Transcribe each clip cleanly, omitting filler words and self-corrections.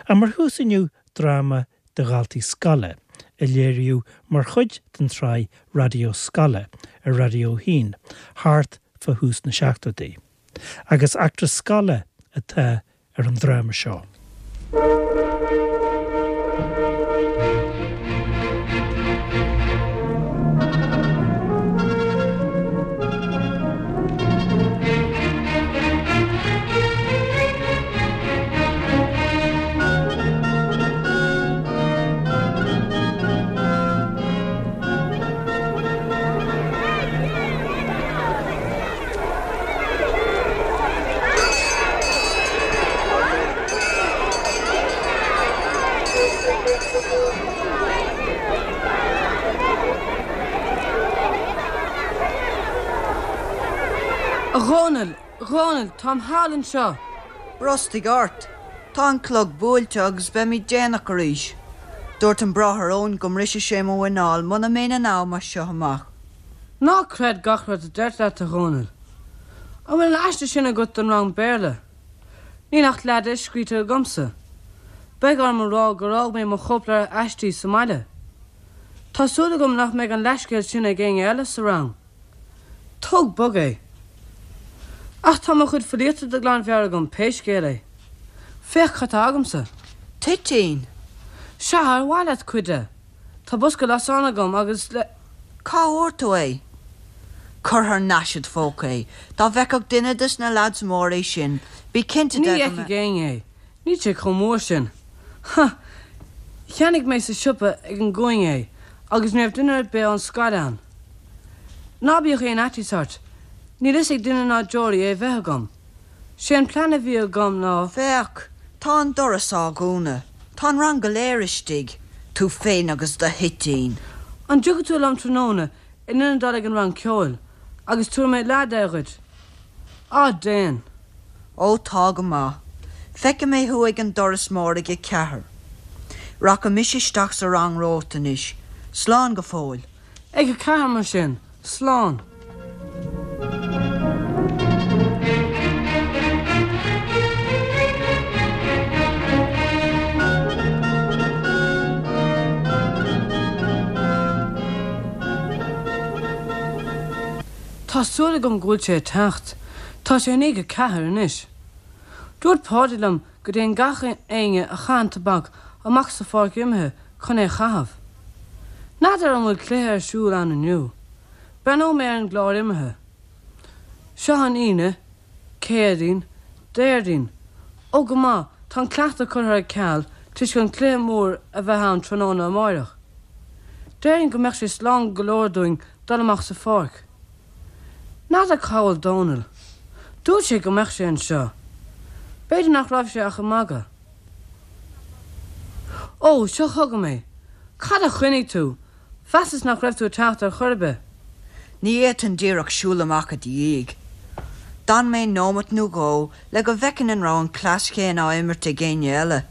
Ach mar thús inniu dráma do dhaltaí scoile a léiríodh mar chuid den tsraith Raidió Scoile ar Raidió 1 thart fá thús na seachtóidí. Agus eachtra scoile atá ar an dráma seo. A Dhónaill! A Dhónaill, táim thall anseo! Brostaigh ort! Tá an clog buailte agus beimid déanach arís. Dúirt an Bráthair Eoin go mbrisfeadh sé mo mhuineál muna mbeinn in am as seo amach. Ná creid gach rud a deirtear leat, a Dhónaill. An bhfuil an aiste sin agat don rang Béarla? Níl ach leath de scríte agamsa. Beidh orm a rá gur fhág mé mo chóipleabhar aistí sa mbaile. Tá súil agam nach mbeidh an leathscéal sin ag éinne eile sa rang. Tóg bog é. Ach tá mo chuid filíochta de ghlanmheabhair agam pé scéal é. Féach cad tá agamsa. Toitín! Sea, ar mhaith leat cuid de? Tá bosca lasán agam agus le. Cá bhfuair tú é? Cuir thar n-ais id phóca é. Dá bhfeicfeadh duine des na leaids móra é sin, bí cinnte Ní de go fheicfidh éinne é. Níl sé chomh mór sin. Ha! Cheannaigh mé sa siopa ag an gcúinne é agus ní raibh duine ar bith ón scoil ann. Ná bíodh aon fhaitíos ort, níl fhios ag duine ná deoraí é bheith agam. Sé an plean a bhí agam ná. Féach! Tá an doras á dhúnadh. Tá an rang go léir istigh. Tú féin agus do thoitín. An dtiocfaidh tú liom tráthnóna in ionad dul ag an rang ceoil, agus tabharfaidh mé leath de dhuit? Á, déan! Ó, tá go maith. Feicfidh mé thú ag an doras mór ag a ceathair. Rachaidh mise isteach sa rang romhat anois. Slán go fóill. Ag a ceathair mar sin. Slán. Tá súil agam go bhfuil sé ag teacht. Tá sé i ndiaidh a ceathair anois. Dúirt Páidí liom go dtéann gach éinne a chaitheann tobac amach sa pháirc imeartha chun é a chaitheamh. N'fheadar an bhfuil cluiche ar siúl ann inniu. Breathnóidh mé ar an gclár imeartha. Seo an Aoine, Céadaoin, Déardaoin. Ó go maith, tá an cleachtadh curtha ar ceal toisc an cluiche mór a bheith ann tráthnóna amáireach. Déarfainn go mbeadh sé slán go leor dúinn dul amach sa pháirc. N'fheadar cá bhfuil Dónal. Dúirt sé go mbeadh sé anseo. B'fhéidir nach raibh sé ach ag magadh. Ó, seo chugam é. Cad a choinnigh tú? Mheasas nach raibh tú ag teacht ar chor ar bith. Ní fhéadfainn díreach siúl amach i do dhiaidh. D'fhan mé nóimeat nó dhó le go bhfeicfinn an raibh an cleas chéanna á imirt ag éinne eile.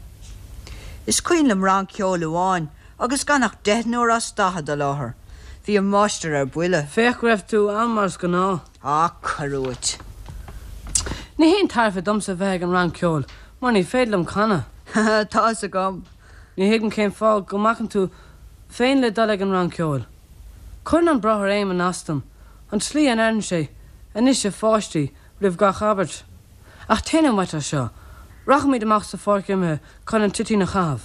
Is cuimhin liom rang ceoil amháin agus gan ach deichniúr as 40 i láthair. Bhí an máistir ar buile. Féach go raibh tú ann mar is gnáth. Á, cuir uait. Ní haon tairbhe domsa bheith ag an rang ceoil mar ní féidir liom canadh. Tá fhios agam. Ní thuigim cén fáth go mbacann tú féin le dul ag an rang ceoil. Cuireann an Bráthair Éamonn as dom, an tslí a ndeireann sé, 'Anois, a pháistí, roimh gach abairt. Ach téanam uait as seo. Rachaimid amach sa pháirc imeartha chun an toitín a chaitheamh.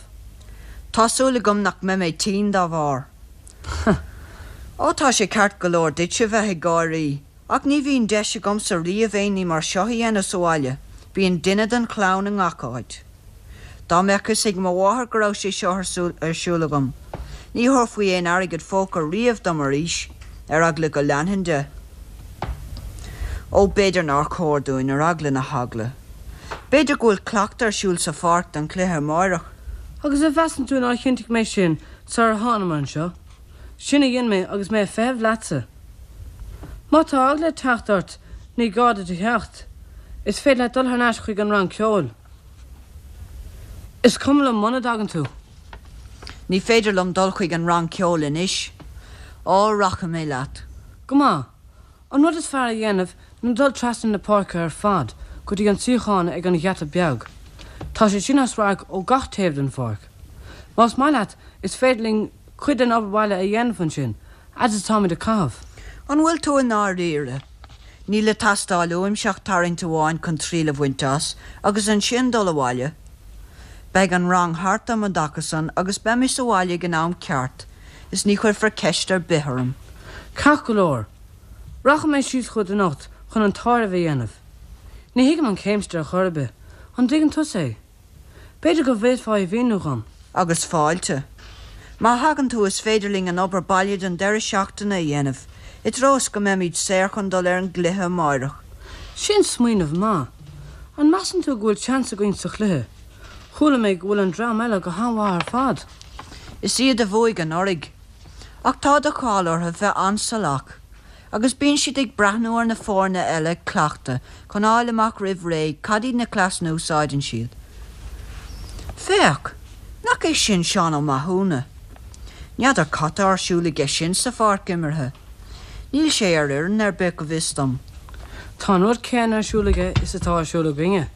Tá súil agam nach mbeidh mé tinn dá bharr. Ó, tá sé ceart go leor duitse bheith ag gáirí, ach ní bhíonn deis agamsa riamh aon ní mar seo a dhéanamh sa bhaile, bíonn duine den chlann i ngach áit. Dá mbeadh fhios ag mo mháthair go raibh sé seo ar siúl agam, ní thabharfaí aon airgead phóca riamh dom arís, ar eagla go leanfainn de. Ó, b'fhéidir nár chóir dúinn, ar eagla na heagla. B'fhéidir go bhfuil cleachtadh ar siúl sa pháirc don chluiche amáireach. Agus an measann tú nár chinntigh mé sin sular thánamar anseo? Sin a dhein mé agus mé ag feitheamh leatsa. Má tá eagla ag teacht ort, ní gá duit a theacht. Is féidir leat dul thar n-ais chuig an rang ceoil. Is cuma liom muna dtagann tú. Ní féidir liom dul chuig an rang ceoil anois. Á, rachaidh mé leat. Go maith. An rud is fearr a dhéanamh ná dul trasna na páirce ar fad go dtí an suíochán ag an gheata beag. Tá sé sin as radharc ó gach taobh den pháirc. Más maith leat, is féidir linn cuid den obair bhaile a dhéanamh ansin, fhad is atáimid ag caitheamh. An bhfuil tú i ndáiríre? Níl ag teastáil uaimse ach tarraingt amháin chun triail a bhaint as, agus ansin dul abhaile. Beidh an rang thart um an dtaca san agus beidh mé sa bhaile ag an am ceart is ní chuirfear ceist ar bith orm. Ceart go leor. Rachaidh mé síos chugat anocht chun an t-áireamh a dhéanamh. Ní thuigim an chéimseata ar chor ar bith. An dtuigeann tusa é? B'fhéidir go bhféadfá é a mhíniú dhom. Agus fáilte. Má thagann tú is féidir linn an obair baile don deireadh seachtaine a dhéanamh, i dtreo is go mbeimid saor chun dul ar an gcluiche amáireach. Sin smaoineamh maith. An measann tú go bhfuil seans againn sa chluiche? Chuala mé go bhfuil an dream eile go han-mhaith ar fad. Is iad a bhuaigh anuraidh. Ach tá de cháil orthu bheith an-salach. Agus bíonn siad ag breathnú ar na foirne eile ag cleachtadh chun fháil amach roimh ré cad iad na cleasanna a úsáideann siad. Féach! Nach é sin Seán Ó Mathúna? N'fheadar cad tá ar siúl aige sin sa pháirc imeartha. Níl sé ar fhoireann ar bith go bhfios dom. Tá an rud céanna ar siúl aige is atá ar siúl againne.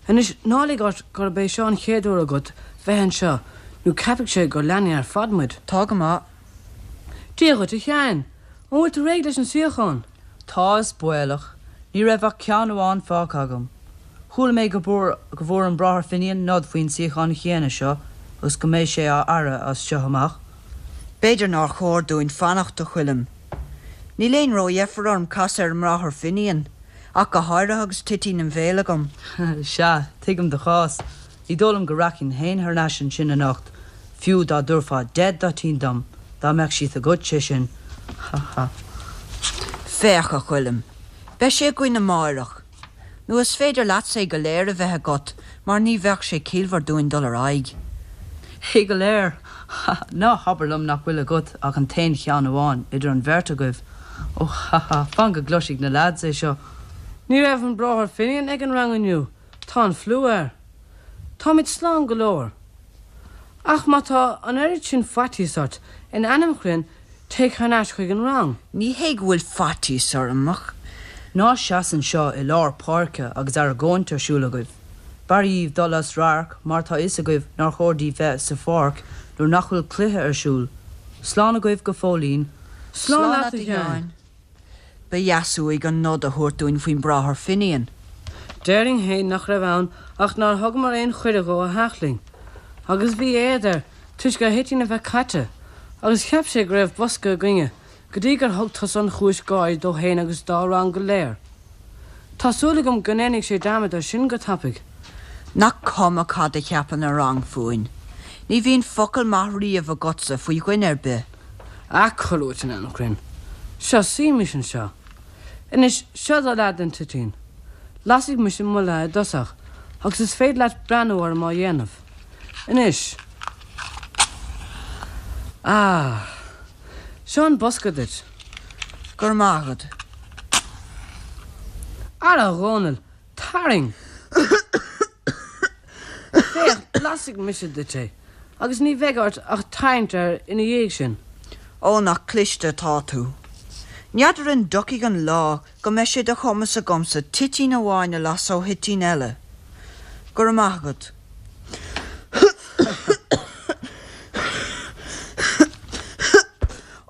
Anois ná lig ort gurb é seo an chéad uair agat bheith anseo nó ceapfaidh sé gur leanaí ar fad muid. Tá go maith. Dia dhuit, a Sheáin! An bhfuil tú réidh leis an suíochán? Tá, is baolach. Ní raibh ach ceann amháin fágtha agam. Chuala mé go bhfuair an Bráthair Finian nod faoin suíochán chéanna seo agus go mbeidh sé á fhaire as seo amach. B'fhéidir nár chóir dúinn fanacht, a Choilm. Níl aon ródheifir orm casadh ar an mBráthair Finian, ach go háirithe agus toitín im bhéal agam. Sea, tuigim do chás. Ní dóigh liom go rachainn féin thar n-ais ansin anocht, fiú dá dtabharfá deich dtoitín dom, dá mbeadh siad agat, sé sin. Ha ha. Féach, a Choilm, beidh sé againn amáireach. Nó is féidir leatsa é go léir a bheith agat, mar ní bheadh sé ciallmhar dúinn dul ar aghaidh. É go léir? Ha ha. Ná habair liom nach bhfuil agat ach an t-aon cheann amháin, idir an bheirt agaibh. Ó ha ha, fan go gcloisfidh na leaids é seo. Ní raibh an Bráthair Finian ag an rang inniu. Tá an fliú air. Táimid slán go leor. Ach má tá an oiread sin faitíos ort, in ainm Chroinn, téigh thar n-ais chuig an rang. Ní hé go bhfuil faitíos orm, ach. Ná seas anseo i lár páirce agus argóint ar siúl agaibh. B'fhearr dhíbh dul as radharc mar tá fhios agaibh nár chóir daoibh bheith sa pháirc nuair nach bhfuil cluiche ar siúl. Slán agaibh go fóillín. Slán leat, a Sheáin. Ba dheas uaidh an nod a thabhairt dúinn faoin mBráthair Finian. Déarfainn fhéin nach raibh ann ach nár thugamar aon chuireadh dhó a theacht linn. Agus bhí éad air toisc a thoitín a bheith caite, agus cheap sé go raibh bosca againne, go dtí gur thug tusa an chúis gáire dó fhéin agus dá rang go léir. Tá súil agam go ndéanfaidh sé dearmad air sin go tapaidh. Nach cuma cad a cheapann an rang fúinn. Ní bhíonn focal maith riamh agatsa faoi dhuine ar bith. Ah, cuir uait in ainm Chroinn. Seo, suímis anseo. Anois, seo do leath den toitín. Lasfaidh mise mo leath i dtosach, agus is féidir leat breathnú orm á dhéanamh. Anois. Ah. Seo an bosca duit. Go raibh maith agat. Ara, a Dhónaill, tarraing! Féach, lasfaidh mise duit é, agus ní bheidh ort ach tarraingt air ina dhiaidh sin. Ó, nach cliste atá tú. N'fheadar an dtiocfaidh an lá go mbeidh sé de chumas agamsa toitín amháin a lasadh ó thoitín eile. Go raibh maith agat.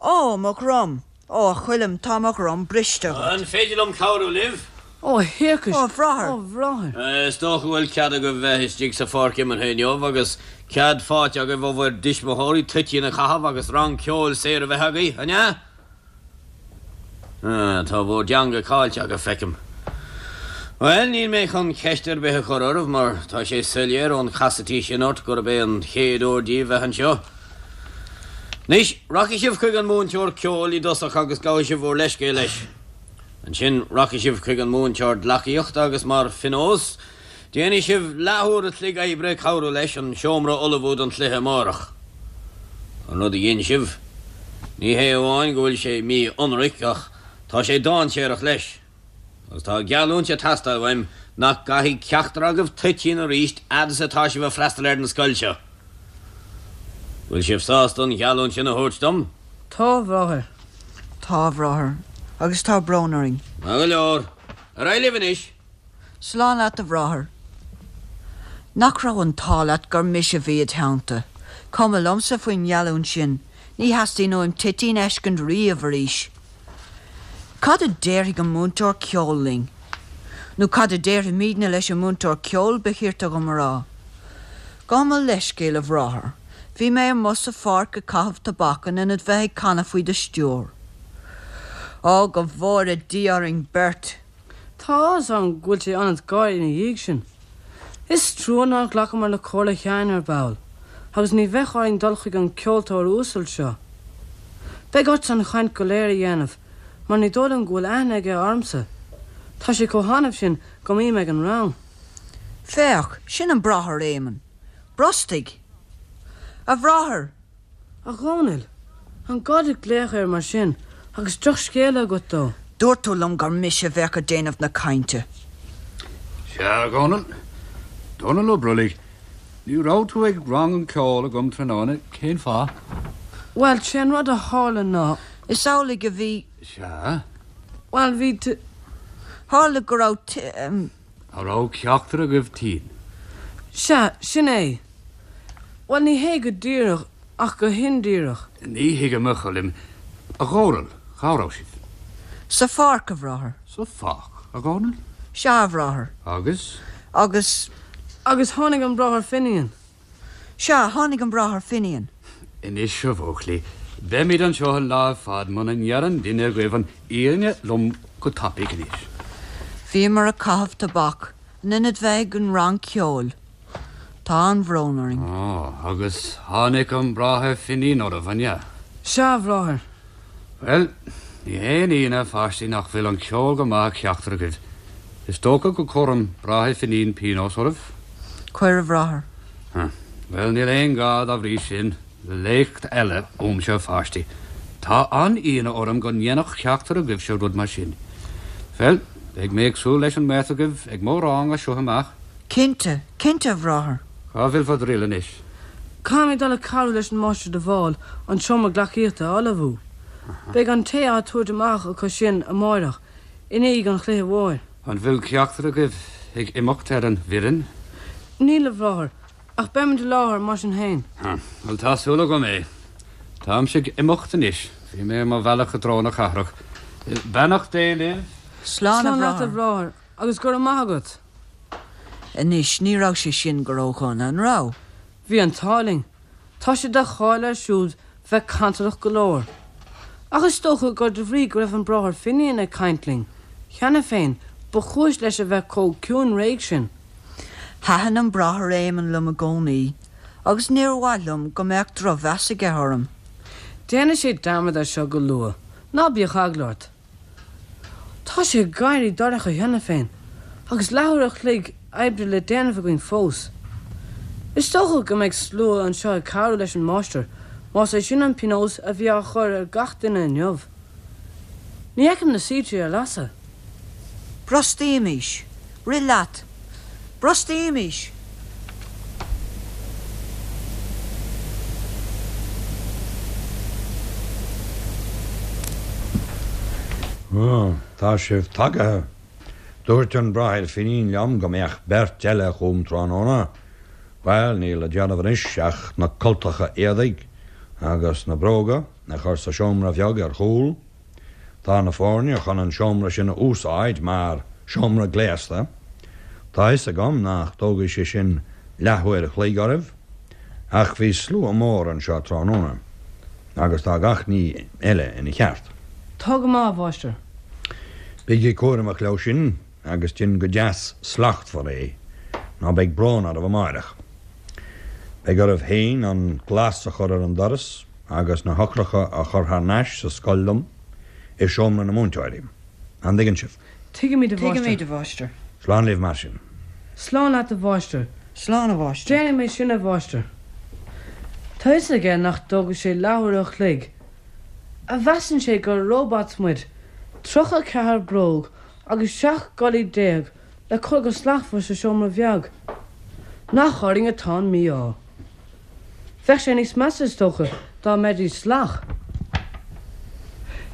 Ó, mo dhroim! Ó, a Choilm, tá mo dhroim briste agat. An féidir liom cabhrú libh? Ó, a thiarcais! Ó, a bhráthair! Ó, a bhráthair! Is dócha go bhfuil cead agaibh bheith istigh sa pháirc imeartha inniu agus cead faighte agaibh ó bhur dtuismitheoirí toitín a chaitheamh agus rang ceoil saor a bheith agaibh, an ea? Ah, tá bhur dteanga caillte agaibh, feicim. Bhuel, níl mé chun ceist ar bith a chur oraibh mar tá sé soiléir ón chasaidí sin ort gurb é an chéad uair díbh bheith anseo. Anois, rachaidh sibh chuig an múinteoir ceoil i dtosach agus gabhfaidh sibh bhur leithscéal leis. Ansin, rachaidh sibh chuig an múinteoir gleacaíochta agus mar phionós, déanfaidh sibh leathuair a chloig oibre ag cabhrú leis an seomra a ullmhú don chluiche amárach. An rud a dhein sibh, ní hé amháin go bhfuil sé mí-ionraic ach tá sé dainséarach leis. Agus tá geallúint ag teastáil uaim nach gcaithfidh ceachtar agaibh toitín arís fhad is atá sibh ag freastal ar an scoil seo. Bhfuil sibh sásta an gheallúint sin a thabhairt dom? Tá, a bhráthair. Tá, a bhráthair. Agus tá brón orainn. Maith go leor. Ar aghaidh libh anois. Slán leat, a bhráthair. Nach raibh an t-ádh leat gur mise a bhí id theannta? Cuma liomsa faoin ngeallúint sin, ní theastaíonn uaim toitín a fheiscint riamh arís. Cad a déarfaidh an múinteoir ceoil linn? Nó cad a déarfaimidne leis an múinteoir ceoil, ba chirte dhom a rá. Gabh mo leithscéal, a bhráthair. Bhí mé amuigh sa pháirc ag caitheamh tobac in ionad bheith ag canadh faoi do stiúir. Ó, go bhfóire Dia orainn beirt! Tá áthas orm go bhfuil sé ionat gáire ina dhiaidh sin. Is trua nár ghlacamar le comhairle Sheáin ar ball, agus ní bheadh orainn dul chuig an gceoltóir uasal seo. Beidh ortsa an chaint go léir a dhéanamh, mar ní dóigh liom go bhfuil aithne aige ormsa. Tá sé chomh hannamh sin go mbím ag an rang. Féach, sin an Bráthair Éamonn. Brostaigh! A Bhráthair! A Dhónaill, an gá duit glaoch air mar sin agus drochscéala agat dó? Dúirt tú liom gur mise a bheadh ag déanamh na cainte. Sea, a Dhónaill. Dónall Ó Brollaigh, ní raibh tú ag rang an ceoil agam tráthnóna, cén fáth? Bhuel, sé an rud a tharla ná. Is amhlaidh a bhí. Sea. Bhuel, bhí t. Tharla go raibh t. An raibh ceachtar agaibh tinn? Sea, sin é. Bhuel, ní hé go díreach, ach go hindíreach. Ní thuigim, a Choilm. A Dhónaill, cá raibh sibh? Sa pháirc, a bhráthair. Sa pháirc, a Dhónaill? Sea, a bhráthair. Agus? Agus. Agus tháinig an Bráthair Finian. Sea, tháinig an Bráthair Finian. Anois, a bhuachaillí, beimid anseo an lá ar fad muna ndeireann duine agaibh an fhírinne liom go tapaidh anois. Bhíomar ag caitheamh tobac in ionad bheith ag an rang ceoil. Tá an-bhrón orainn. Ó, agus tháinig an Bráthair Finian oraibh, an ea? Sea, a Bhráthair. Bhuel, ní haon ionadh, a pháistí, nach bhfuil an ceol go maith ag ceachtar agaibh. Is dócha go gcuirfidh an Bráthair Finian pionós oraibh? Cuir, a Bhráthair. Bhuel, níl aon ghá, dá bhrí sin, le léacht eile uaimse, a pháistí. Tá an-ionadh orm go ndéanfadh ceachtar agaibhse rud mar sin. Bhuel, beidh mé ag súil leis an mbeirt agaibh ag mo rang as seo amach. Cinnte, cinnte, a Bhráthair. Cá bhfuil bhur dtriall anois? Caithfimid dul ag cabhrú leis an Máistir de Bhál an seomra gleacaíochta a ullmhú. Beidh an tae á tabhairt amach acu sin amáireach, i ndiaidh an chluiche mhóir. An bhfuil ceachtar agaibh ag imeacht ar an bhfoireann? Níl, a Bhráthair, ach beimid i láthair mar sin féin. Bhuel, tá súil agam é. Táimse ag imeacht anois. Bhí mé ar mo bhealach i dtreo na cathrach. Beannacht Dé libh. Slán, a Slán leat, a Bhráthair. Bhráthair, agus go raibh maith agat. Anois, ní raibh sé sin go ródhona, an raibh? Bhí an t-ádh linn. Tá sé de cháil air siúd bheith cantalach go leor. Ach is dócha gur de bhrí go raibh an Bráthair Finian ag caint linn, cheana féin, ba chúis leis a bheith chomh ciúin réidh sin. Thaitin an Bráthair Éamonn liom i gcónaí, agus níor mhaith liom go mbeadh drochmheas aige orm. Déanfaidh sé dearmad air seo go luath, ná bíodh eagla ort. Tá sé ag éirí dorcha cheana féin, agus leathuair a chloig oibre le déanamh againn fós. Is dócha go mbeidh slua anseo ag cabhrú leis an máistir, más é sin an pionós a bhí á chur ar gach duine inniu. Ní fheicim na soilse ar lasadh. Brostaímis! Rith leat! Brostaímis! Ó, tá sibh tagaithe. Dúirt an Bráthair Finín liom go mbeadh beirt eile chugam tráthnóna. Bhuel, níl le déanamh anois ach na cultacha éadaigh agus na bróga a chur sa seomra bheag ar chúl. Tá na foirne chun an seomra sin a úsáid mar seomra gléasta. Tá fhios agam nach dtógfaidh sé sin leathuair a chloig oraibh, ach bhí slua mór anseo tráthnóna, agus tá gach ní eile ina cheart. Tá go maith, a Mháistir. Bígí cúramach leo sin agus dein go deas slachtmhar é, nó beidh brón oraibh amáireach. Beidh oraibh féin an glas a chur ar an doras agus na heochracha a chur thar n-ais sa scoil liom, i seomra na múinteoirí. An dtuigeann sibh? Tuigimid, a Mháistir. Tuigimid, a Mháistir. Slán libh mar sin. Slán leat, a Mháistir. Slán, a Mháistir. Déanfaidh mé sin, a Mháistir. Tá fhios aige nach dtógfaidh sé leathuair a chloig. An measann sé gur robots muid, 34 bróg agus 17 gculaith le cur go slachtmhar sa seomra bheag. Nach orainn atá an mí-ádh. Bheadh sé níos measa, is dócha, dá mbeidís salach.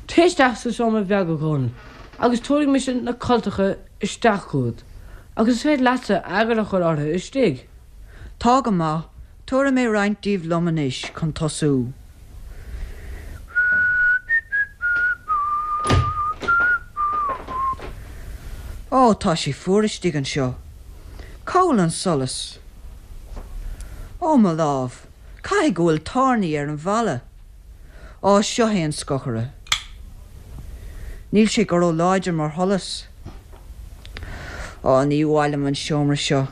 Téigh isteach sa seomra bheag, a Dhónaill, agus tabharfaidh mise na cultacha isteach chugat, agus is féidir leatsa eagar a chur orthu istigh. Tá go maith, tabharfaidh mé roinnt díobh liom anois chun tosú. Ó, tá sé fuar istigh anseo. Cá bhfuil an solas? Ó, mo lámh, caithfidh go bhfuil tairní ar an bhalla. Á, seo é an scochaire. Níl sé go ró-láidir mar sholas. Á, ní mhaith liom an seomra seo.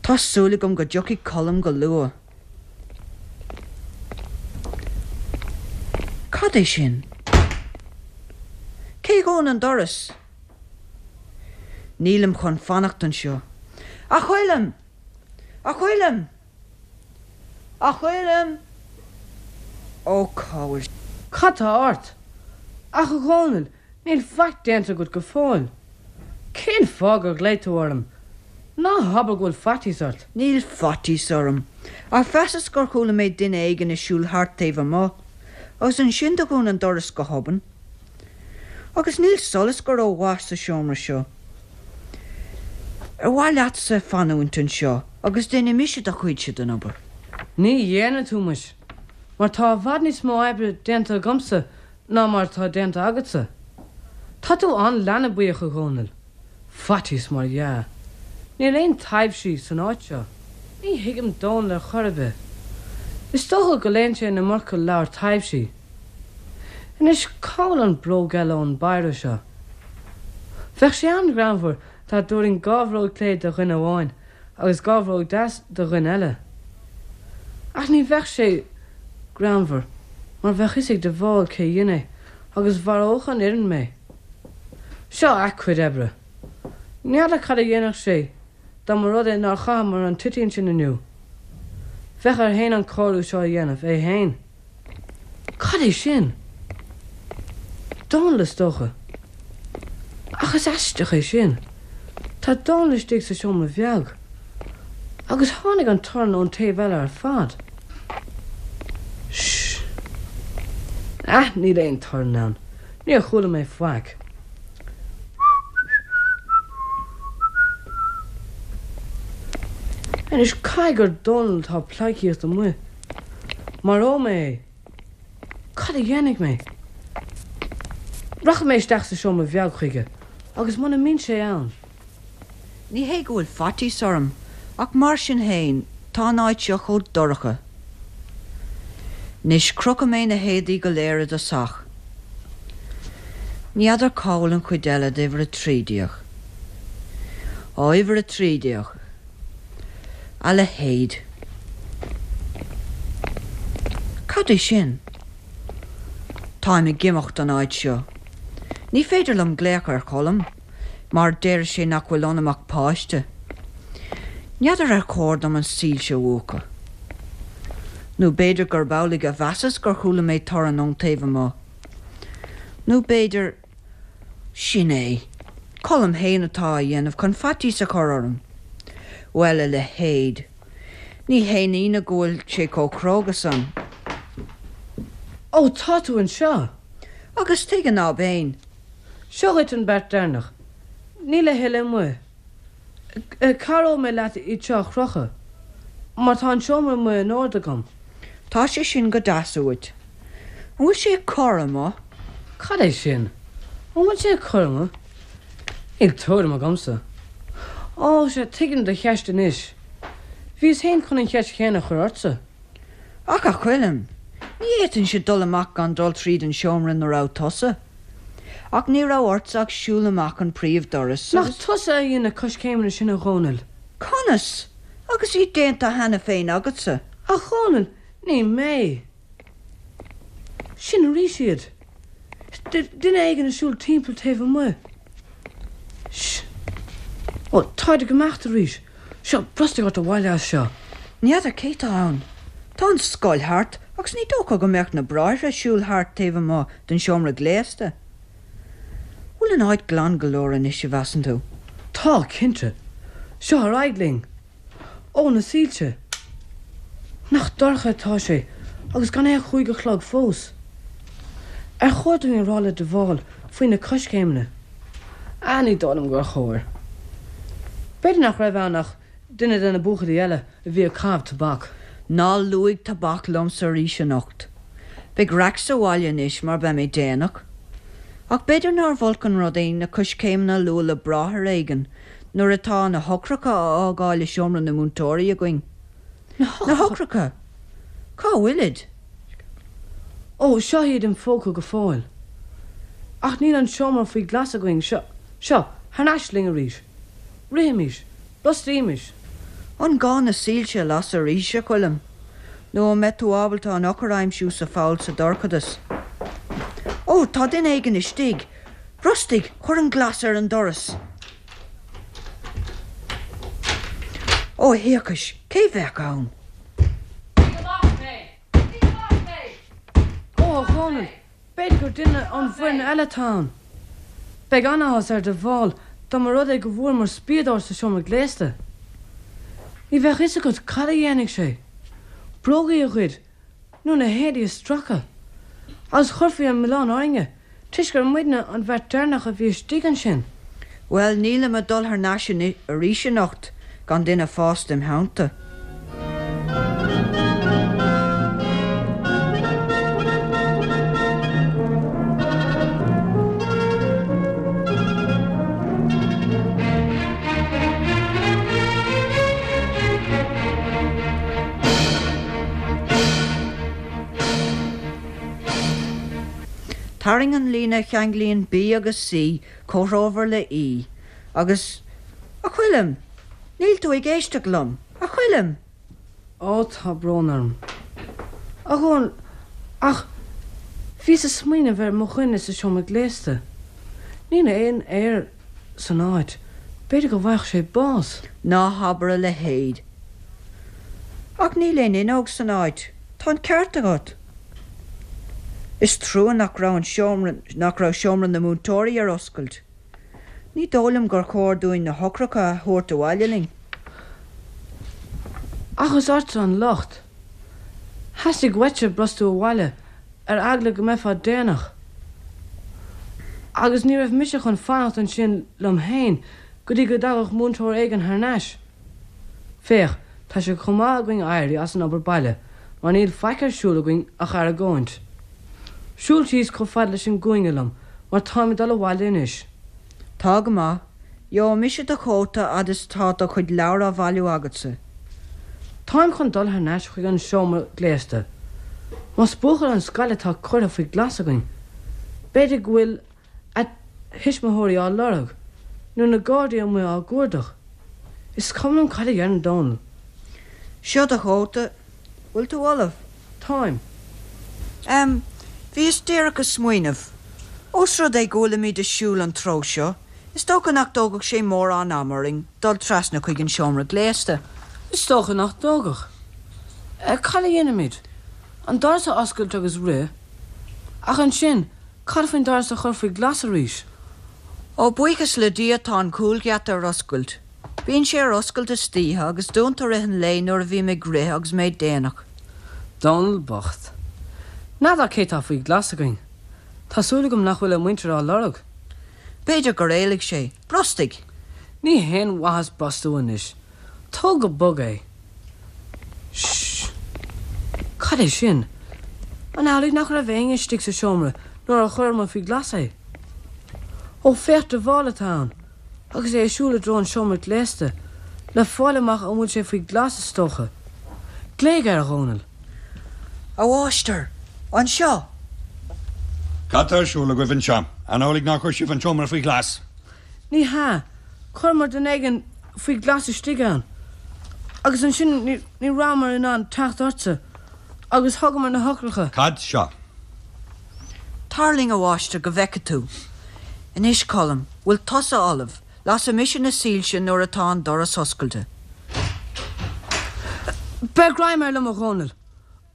Tá súil agam go dtiocfaidh Colm go luath. Cad é sin? Cé dhún an doras? Nílim chun fanacht anseo. A Choilm! A Choilm! A Choilm! Ó, cá bhfuil. Cad tá ort? Ach a Dhónaill, níl faic déanta agat go fóill. Cén fáth gur ghlaoigh tú orm? Ná habair go bhfuil faitíos ort. Níl faitíos orm, ach mheasas gur chuala mé duine éigin ag siúl thart taobh amuigh, agus ansin do dhún an doras go hobann. Agus níl solas go ró-mhaith sa seomra seo. Ar mhaith leatsa fanúint anseo agus déanfaidh mise do chuidse den obair? Ní dhéanfaidh tú muis, mar tá i bhfad níos mó oibre déanta agamsa ná mar atá déanta agatsa. Tá tú an-leanbaíoch, a Dhónaill. Faitíos mar dhea. Níl aon taibhsí san áit seo. Ní thuigim Dónall ar chor ar bith. Is dócha go léann sé an iomarca leabhar taibhsí. Anois cá bhfuil an bróg eile ón bpéire seo? Bheadh sé an-ghreannmhar dá dtabharfainn dha bhróg clé do dhuine amháin agus dha bhróg deas do dhuine eile. Ach ní bheadh sé greannmhar mar bheadh fhios ag de Bhál cé dhein é agus mharódh an fhoireann mé. Seo a cuid oibre. N'fheadar cad a dhéanfadh sé dá mba rud é nár chaitheamar an toitín sin inniu. Bheadh air fhéin an cóiriú seo a dhéanamh, é fhéin. Cad é sin? Dónall is dócha. Ach is aisteach é sin. Tá Dónall istigh sa seomra bheag. Agus tháinig an torann ón taobh eile ar fad. Sh. Ah, níl aon torann ann. Níor chuala mé faic. Anois caithfidh gur Dónall atá ag pleidhcíocht amuigh. Maróidh mé é. Cad a dhéanfaidh mé? Rachaidh mé isteach sa seomra bheag chuige agus muna mbíonn sé ann. Ní hé go bhfuil faitíos orm, ach mar sin féin, tá an áit seo chomh dorcha. Anois, crochfaidh mé na héadaí go léir i dtosach. Ní fheadar cá bhfuil an chuid eile d'uimhir a 13. Á, uimhir a 13. A leithéid. Cad é sin? Táim ag imeacht ón áit seo. Ní féidir liom glaoch ar Cholm. mar déarfaidh sé nach bhfuil ionam ach páiste. N'fheadar ar chóir dom an soilse a mhúchadh. Nó b'fhéidir gurb amhlaidh a mheasas gur chuala mé torann ón taobh amuigh. Nó b'fhéidir. Sin é. Colm fhéin atá á dhéanamh chun faitíos a chur orm. Bhuel, a leithéid. Ní haon ionadh go bhfuil sé chomh cróga san. Ó, tá tú anseo! Agus tuige ná beinn? Seo dhuit an beart deireanach. Níl a thuilleadh amuigh. Cabhróidh mé leat iad seo a chrochadh, mar tá an seomra amuigh in ord agam. Tá sé sin go deas uait. An bhfuil sé ag cur amuigh? Cad é sin? An bhfuil sé ag cur amuigh? Níl tuairim agamsa. Ó, sea, tuigim do cheist anois. Bhíos féin chun an cheist chéanna a chur ortsa. Ach, a Choilm, ní fhéadfainnse dul amach gan dul tríd an seomra ina raibh tusa. Ach ní raibh ortsa ach siúl amach an príomhdoras Nach agus. tusa a dhein na coiscéimeanna sin, a Dhónaill? Conas? Agus iad déanta cheana féin agatsa? A Dhónaill, ní mé! Sin arís iad! Duine éigin ag siúl timpeall taobh amuigh. Sh! Ó, táid ag imeacht arís. Seo, brostaigh ort abhaile as seo. Ní fheadar cé tá ann. Tá an scoil thart agus ní dócha go mbeadh na bráithre ag siúl thart taobh amuigh den seomra gléasta. Bhfuil an áit glan go leor anois, a mheasann tú? Tá, cinnte. Seo ar aghaidh linn. Ó, na soilse! Nach dorcha atá sé agus gan é ach chúig a chlog fós. Ar chóir dúinn a rá le de Bhál faoi na coiscéimeanna? Ah, ní dóigh liom gur chóir. B'fhéidir nach raibh ann ach. duine de na buachaillí eile a bhí ag caitheamh tobac. Ná luaigh tobac liomsa arís anocht. Beidh raic sa bhaile anois mar beidh mé déanach. Ach b'fhéidir nárbh olc an rud é na coiscéimeanna a lua le bráthair éigin nuair atá na heochracha á fhágáil i seomra na múinteoirí againn. Na heochracha! Cá bhfuilid? Ó, seo iad im phóca go fóill. Ach níl an seomra faoi ghlas againn. Seo, seo, thar n-ais linn arís. Rithimis. Brostaímis. An gá na soilse a lasadh arís, a Choilm? Nó an mbeidh tú ábalta an eochair a aimsiú sa pholl sa dorchadas? Ó, tá duine éigin istigh! Brostaigh! Cuir an glas ar an doras! Ó, a thiarcais, cé bheadh ann? Lig amach mé! Lig amach mé! Ó, a Dhónaill, b'fhéidir gur duine ón bhfoireann eile atá ann. Beidh an-áthas ar De Bhál dá mba rud é go bhfuaireamar spiadóir sa seomra gléasta. Ní bheadh fhios agat cad a dhéanfaidh sé. Brógaí a ghoid nó na héadaí a stracadh. Agus chuirfí an milleán orainne toisc gur muidne an bheirt deireanach a bhí istigh ansin. Bhuel, nílim ag dul thar n-ais arís anocht gan duine fásta im theannta. Tarraing an líne a cheanglaíonn B agus C comhthreomhar le E agus. A Choilm! Níl tú ag éisteacht liom! A Choilm! Ó, tá brón orm, a Dhónaill, ach bhíos ag smaoineamh ar mo dhuine sa seomra gléasta. Níl aon aer san áit, b'fhéidir go bhfaigheadh sé bás. Ná habair a leithéid. Ach níl aon fhuinneog san áit. Tá an ceart agat. Is trua nach raibh an seomra, nach raibh seomra na múinteoirí ar oscailt. Ní dóigh liom gur chóir dúinn na heochracha a thabhairt abhaile linn. Ach is ortsa an locht. Theastaigh uaitse brostú abhaile ar eagla go mbeifeá déanach. Agus ní raibh mise chun fanacht ansin liom féin go dtí go dtagadh múinteoir éigin thar n-ais. Féach, tá sé chomh maith againn éirí as an obair baile mar níl faic ar siúl againn ach argóint. Siúl síos chomh fada leis an gcúinne liom mar táim ag dul abhaile anois. Tá go maith. Gheobhaidh mise do chóta fhad is atá do chuid leabhar á bhailiú agatsa. Táim chun dul thar n-ais chuig an seomra gléasta. Más buachaill ón scoil atá curtha faoi ghlas againn, b'fhéidir go bhfuil a thuismitheoirí á lorg, nó na Gardaí amuigh á gcuardach. Is cuma liom cad a dheireann Dónall. Seo do chóta. Bhfuil tú ullamh? Táim. Em, bhíos díreach ag smaoineamh. Ós rud é go bhfuilimid ag siúl an treo seo, is dócha nach dtógfadh sé mórán ama orainn dul trasna chuig an seomra gléasta. Is dócha nach dtógfadh. Cad a dhéanfaimid? An doras a oscailt agus rith? Ach ansin, Cad faoin doras a chur faoi ghlas arís? Ó, buíochas le Dia tá an cúlgheata ar oscailt. Bíonn sé ar oscailt istoíche agus dúnta i rith an lae nuair a bhím ag rith agus mé déanach. Dónall bocht. N'fheadar cé tá faoi ghlas againn. Tá súil agam nach bhfuil a mhuintir á lorg. B'fhéidir gur éalaigh sé. Brostaigh! Ní haon mhaitheas brostú anois. Tóg go bog é. Sh! Cad é sin? An amhlaidh nach raibh éinne istigh sa seomra nuair a chuireamar faoi ghlas é? Ó, féach, de Bhál atá ann, agus é ag siúl i dtreo an seomra gléasta, le fáil amach an bhfuil sé faoi ghlas, is dócha. Glaoigh air, a Dhónaill. A mháistir! Anseo! Cad tá ar siúl agaibh anseo? An amhlaidh nár chuir sibh an seomra faoi ghlas? Ní hea. Chuireamar duine éigin faoi ghlas istigh ann. Agus ansin ní rabhamar in ann teacht ortsa agus thugamar na heochracha. Cad seo? Tar linn, a mháistir, go bhfeice tú. Anois, Colm, bhfuil tusa ullamh? Lasfaidh mise na soilse nuair atá an doras oscailte. Beir greim air liom, a Dhónaill.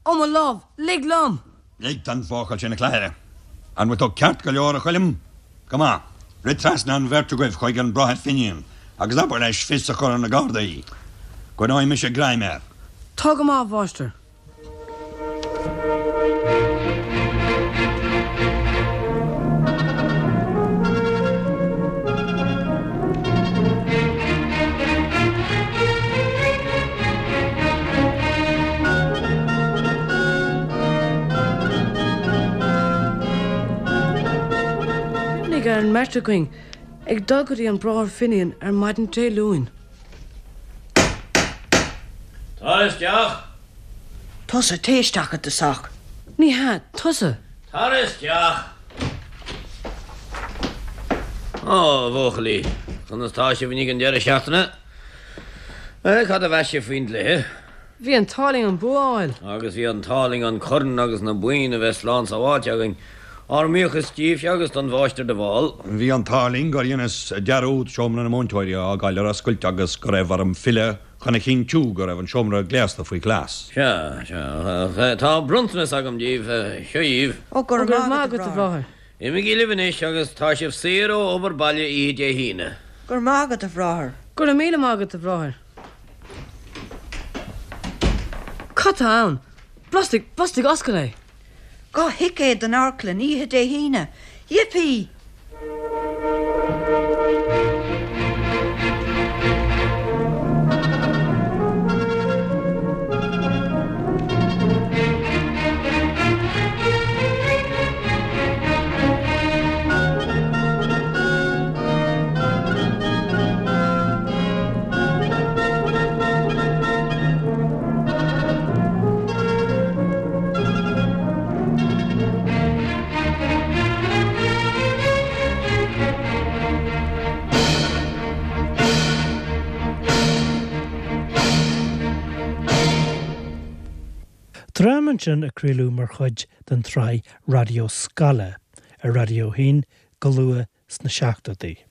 Ó, mo lámh, lig liom! Lig don bhuachaill sin a chladhaire. An bhfuil tú ceart go leor, a Choilm? Go maith. Rith trasna an bheirt agaibh chuig an Bráthair Finian agus abair leis fios a chur ar na Gardaí. Coinneoidh mise greim air. Tá go maith, a mháistir. Beidh an mbeirt againn ag dul go dtí an Bráthair Finian ar maidin Dé Luain. Tar isteach! Tusa, téigh isteach i dtosach. Ní hea, tusa! Tar isteach! Á, a bhuachaillí, conas tá sibh i ndiaidh an deireadh seachtaine? Cad a mheas sibh faoin gcluiche? Bhí an t-ádh linn an bua a fháil. Agus bhí an t-ádh linn an corn agus na boinn a bheith slán sábháilte againn. Ár mbuíochas díbhse agus don Mháistir de Bhál. Bhí an t-ádh linn gur dheineas dearúd seomra na múinteoirí a fhágáil ar oscailt agus go raibh orm filleadh chun a chinntiú go raibh an seomra gléasta faoi ghlas. Sea, sea. Tá bronntanas agam díbh. Seo dhíbh. Ó, go raibh maith agat, a bhráthair. Imígí libh anois agus tá sibh saor ó obair baile oíche Dé hAoine. Go raibh maith agat, a bhráthair. Go raibh míle maith agat, a bhráthair. Cad tá ann? Brostaigh, brostaigh, oscail é! 2 thicéad don amharclann oíche Dé hAoine! Yippee! Dráma ansin a craoladh mar chuid den tsraith Raidió Scoile ar Raidió 1 go luath sna seachtóidí.